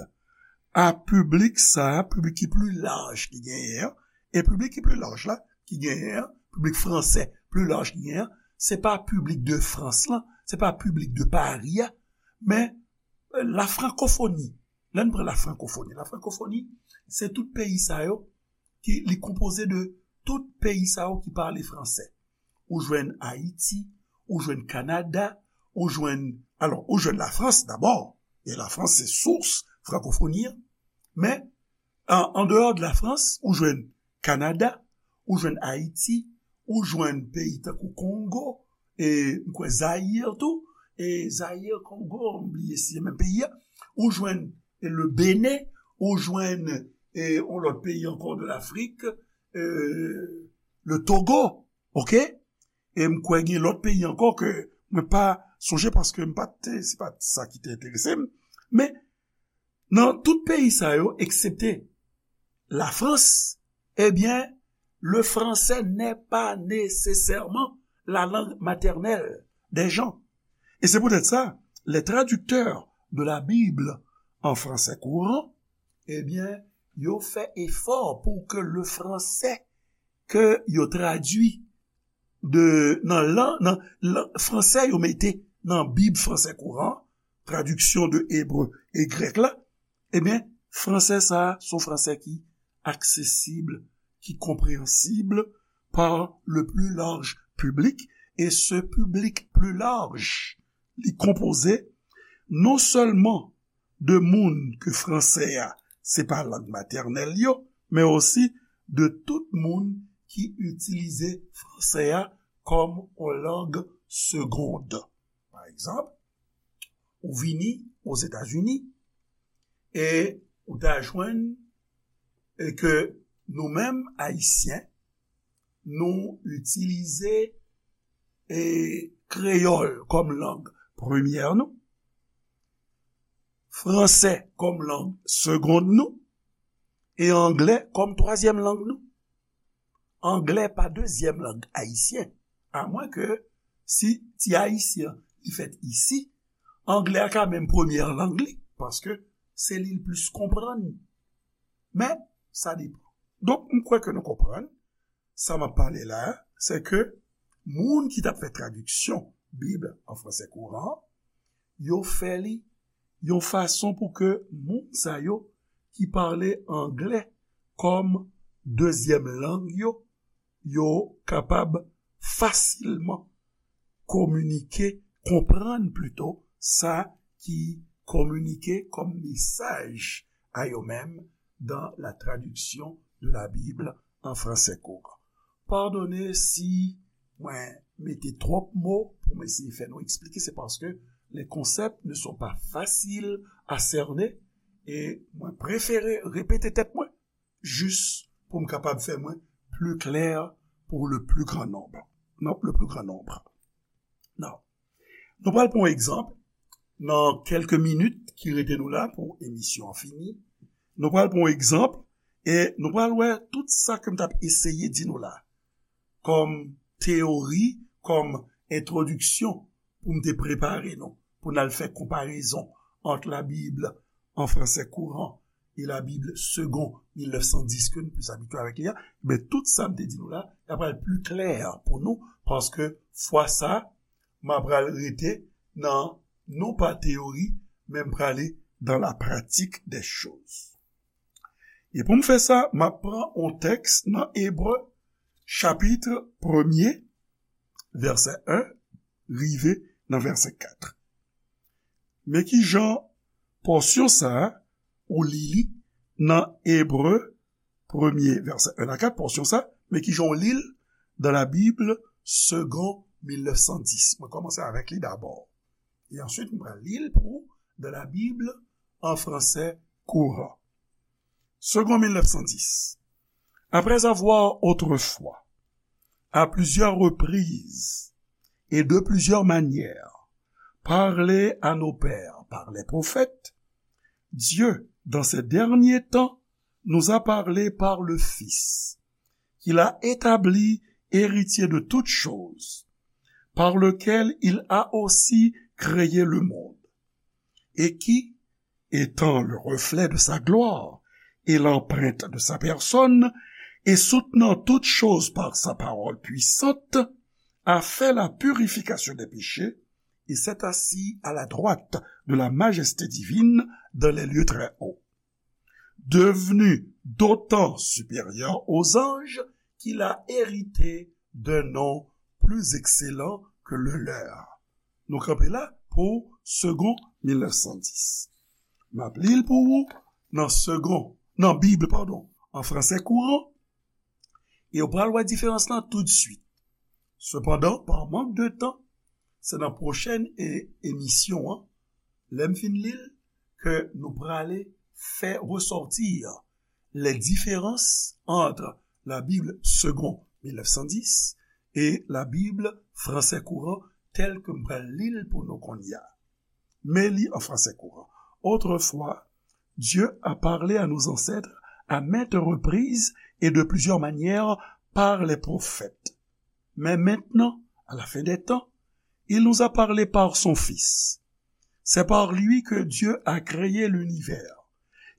a piblik sa a, piblik ki pli laj ki genyen an, e piblik ki pli laj la, ki genyen an, piblik fransè pli laj ki genyen an, se pa piblik de Frans lan, se pa piblik de Pari a, men, euh, la frankofoni. Lè n pran la frankofoni, la frankofoni, se tout peyi sa yo, ki, li konpoze de tout peyi sa yo ki pale fransè. Ou jwenn Ayiti, ou jwenn Kanada, ou jwenn, alò, ou jwenn Lafrans dabò, e Lafrans se sous frankofoni an, men an, an deyò de Lafrans, ou jwenn Kanada, ou jwenn Ayiti, ou jwenn peyi tankou Kongo, e m kwè Zayir tou, e Zayir, Kongo, m bliye si se menm peyi a, ou jwenn, e, le Benin, ou jwenn, e, yon lòt peyi ankò de Lafrik, e, le Togo, oke? E m kwè gen lòt peyi ankò ke mwen pa sonje paske m pa te, se pa sa ki te enterese m. Men, nan tout peyi sa yo, eksepte Lafrans, ebyen, le français n'est pas nécessairement la langue maternelle des gens. Et c'est peut-être ça, les traducteurs de la Bible en français courant, ebyen, yo fè efò pou ke le français ke yo tradui de, nan lan, nan lan, fransè yo mete nan Bib fransè kouran, tradiksyon de ebre e grèk la, ebyen, fransè sa a, se yon fransè ki aksesib, ki konpreyansib par le plus large public, e se piblik pli laj, li konpoze non sèlman de moun ke fransè a se pa lang matènèl yo, men osi de tout moun ki itilize fransè a kòm yon lang segond. Pa egzanp, ou vini Ozetazini e ou ta jwenn e ke nou menm Ayisyen, nou itilize e kreyòl kòm lang premyè nou, fransè kòm lang segond nou, e anglè kòm twazyèm lang nou. Anglè pa dezyèm lang ayisyen, amwen ke si ti ayisyen li fèt isi, anglè a ka menm premyè lang li, paske se li l plis konprann. Men, sa depann. Donk, m kwè ke nou konprann, sa m ap pale la a, se ke moun ki t ap fè tradiksyon Bib an fransè kouran, yo fè li yon fason pou ke moun sa yo ki pale anglè kòm dezyèm lang yo, yo kapab fasilman kominike, konprann plito sa ki kominike kòm mesaj a yo menm dans la traduction de la Bible en français courant. Padone si mwen mete twòp mo pou mwen eseye fè nou eksplike, se paske les concepts ne sont pas faciles à cerner, e mwen prefere repete tèt mwen jis pou m kapab fè mwen pli klè pour le plus grand nombre. Non, le plus grand nombre. Non. Nou pral pran yon egzanp nan kèlke minit ki rete nou la pou emisyon an fini. Nou pral pran yon egzanp e nou pral wè tout sa ke m t ap eseye di nou la kòm teyori, kòm entwodiksyon pou m te prepare nou, pou n al fè konparezon ant la Bible en français courant et la Bible Segond mil nèf san dis ke nou plis abitye avèk li a, men tout sa m te di nou la, l ap pral pli klè pou nou, paske fwa sa, m ap pral rete nan, non pa teyori, men m prale dans la pratique des choses. E pou m fè sa, m ap pran yon tèks nan Ebre, chapit premye, vèsè en, rive nan vèsè kat. Men ki jan pòsyon sa a, ou li li nan Ebre premye, vèsè en a kat, pòsyon sa, men ki jan ou li l dans la Bible Segond mil nèf san dis. Mwen kòmanse avèk li dabò. E answit, mwen pral li l pou ou dans la Bible en français courant. Segond mil nèf san dis. Après avoir autrefois, à plusieurs reprises, et de plusieurs manières parlé à nos pères par les prophètes, Dieu, dans ces derniers temps, nous a parlé par le Fils, qu'il a établi héritier de toutes choses, par lequel il a aussi créé le monde, et qui, étant le reflet de sa gloire et l'empreinte de sa personne, et soutenant toutes choses par sa parole puissante, a fait la purification des péchés et s'est assis à la droite de la majesté divine dans les lieux très hauts, devenu d'autant supérieur aux anges qu'il a hérité d'un nom plus excellent que le leur. Nou kanpe la pou Segond mil nèf san dis. M ap li l pou ou nan Segond, nan Bib, padon, an fransè kouran, e w pral wè diferans lan toutswit. Sepandan, pa mank de tan, se nan pwochèn e-, emisyon an, lè m fin li l, ke nou prale fè resòti les différences entre la Bible Segond mil nèf san dis et la Bible Français Courant telle que m pral li l pou nou kounye a. Men li an fransè kouran. Autrefois, Dieu a parlé à nos ancêtres à maintes reprises et de plusieurs manières par les prophètes. Mais maintenant, à la fin des temps, il nous a parlé par son Fils. C'est par lui que Dieu a créé l'univers,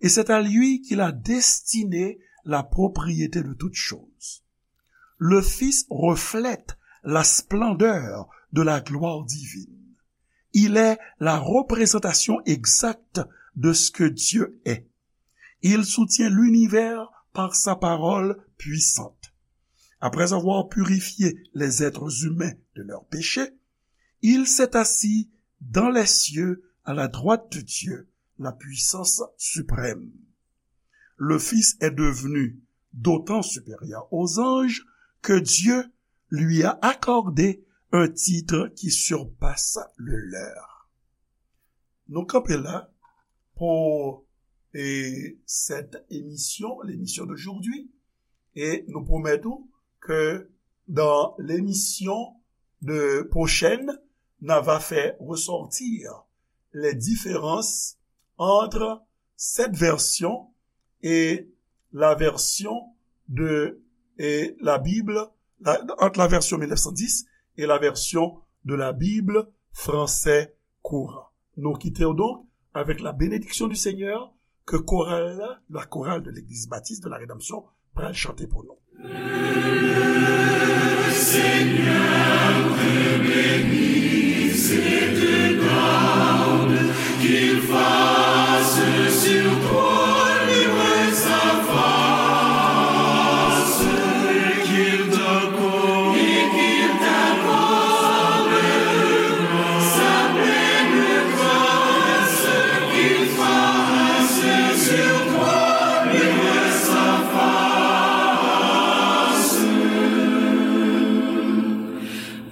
et c'est à lui qu'il a destiné la propriété de toutes choses. Le Fils reflète la splendeur de la gloire divine. Il est la représentation exacte de ce que Dieu est. Il soutient l'univers par sa parole puissante. Après avoir purifié les êtres humains de leurs péchés, il s'est assis dans les cieux à la droite de Dieu, la puissance suprême. Le Fils est devenu d'autant supérieur aux anges que Dieu lui a accordé un titre qui surpasse le leur. Nou kanpe la pou, e, cette émission, l'émission d'aujourd'hui. E nou pwomèt ou ke dans l'émission de prochaine, n a va faire ressortir les différences entre cette version et la version de, et la Bible, la, entre la version mille neuf cent dix et la version de la Bible français courant. Nou kite w donk avèk la bénédiction du Seigneur ke koral la, la chorale de l'Église Baptiste de la Rédemption, pral chante pou nou.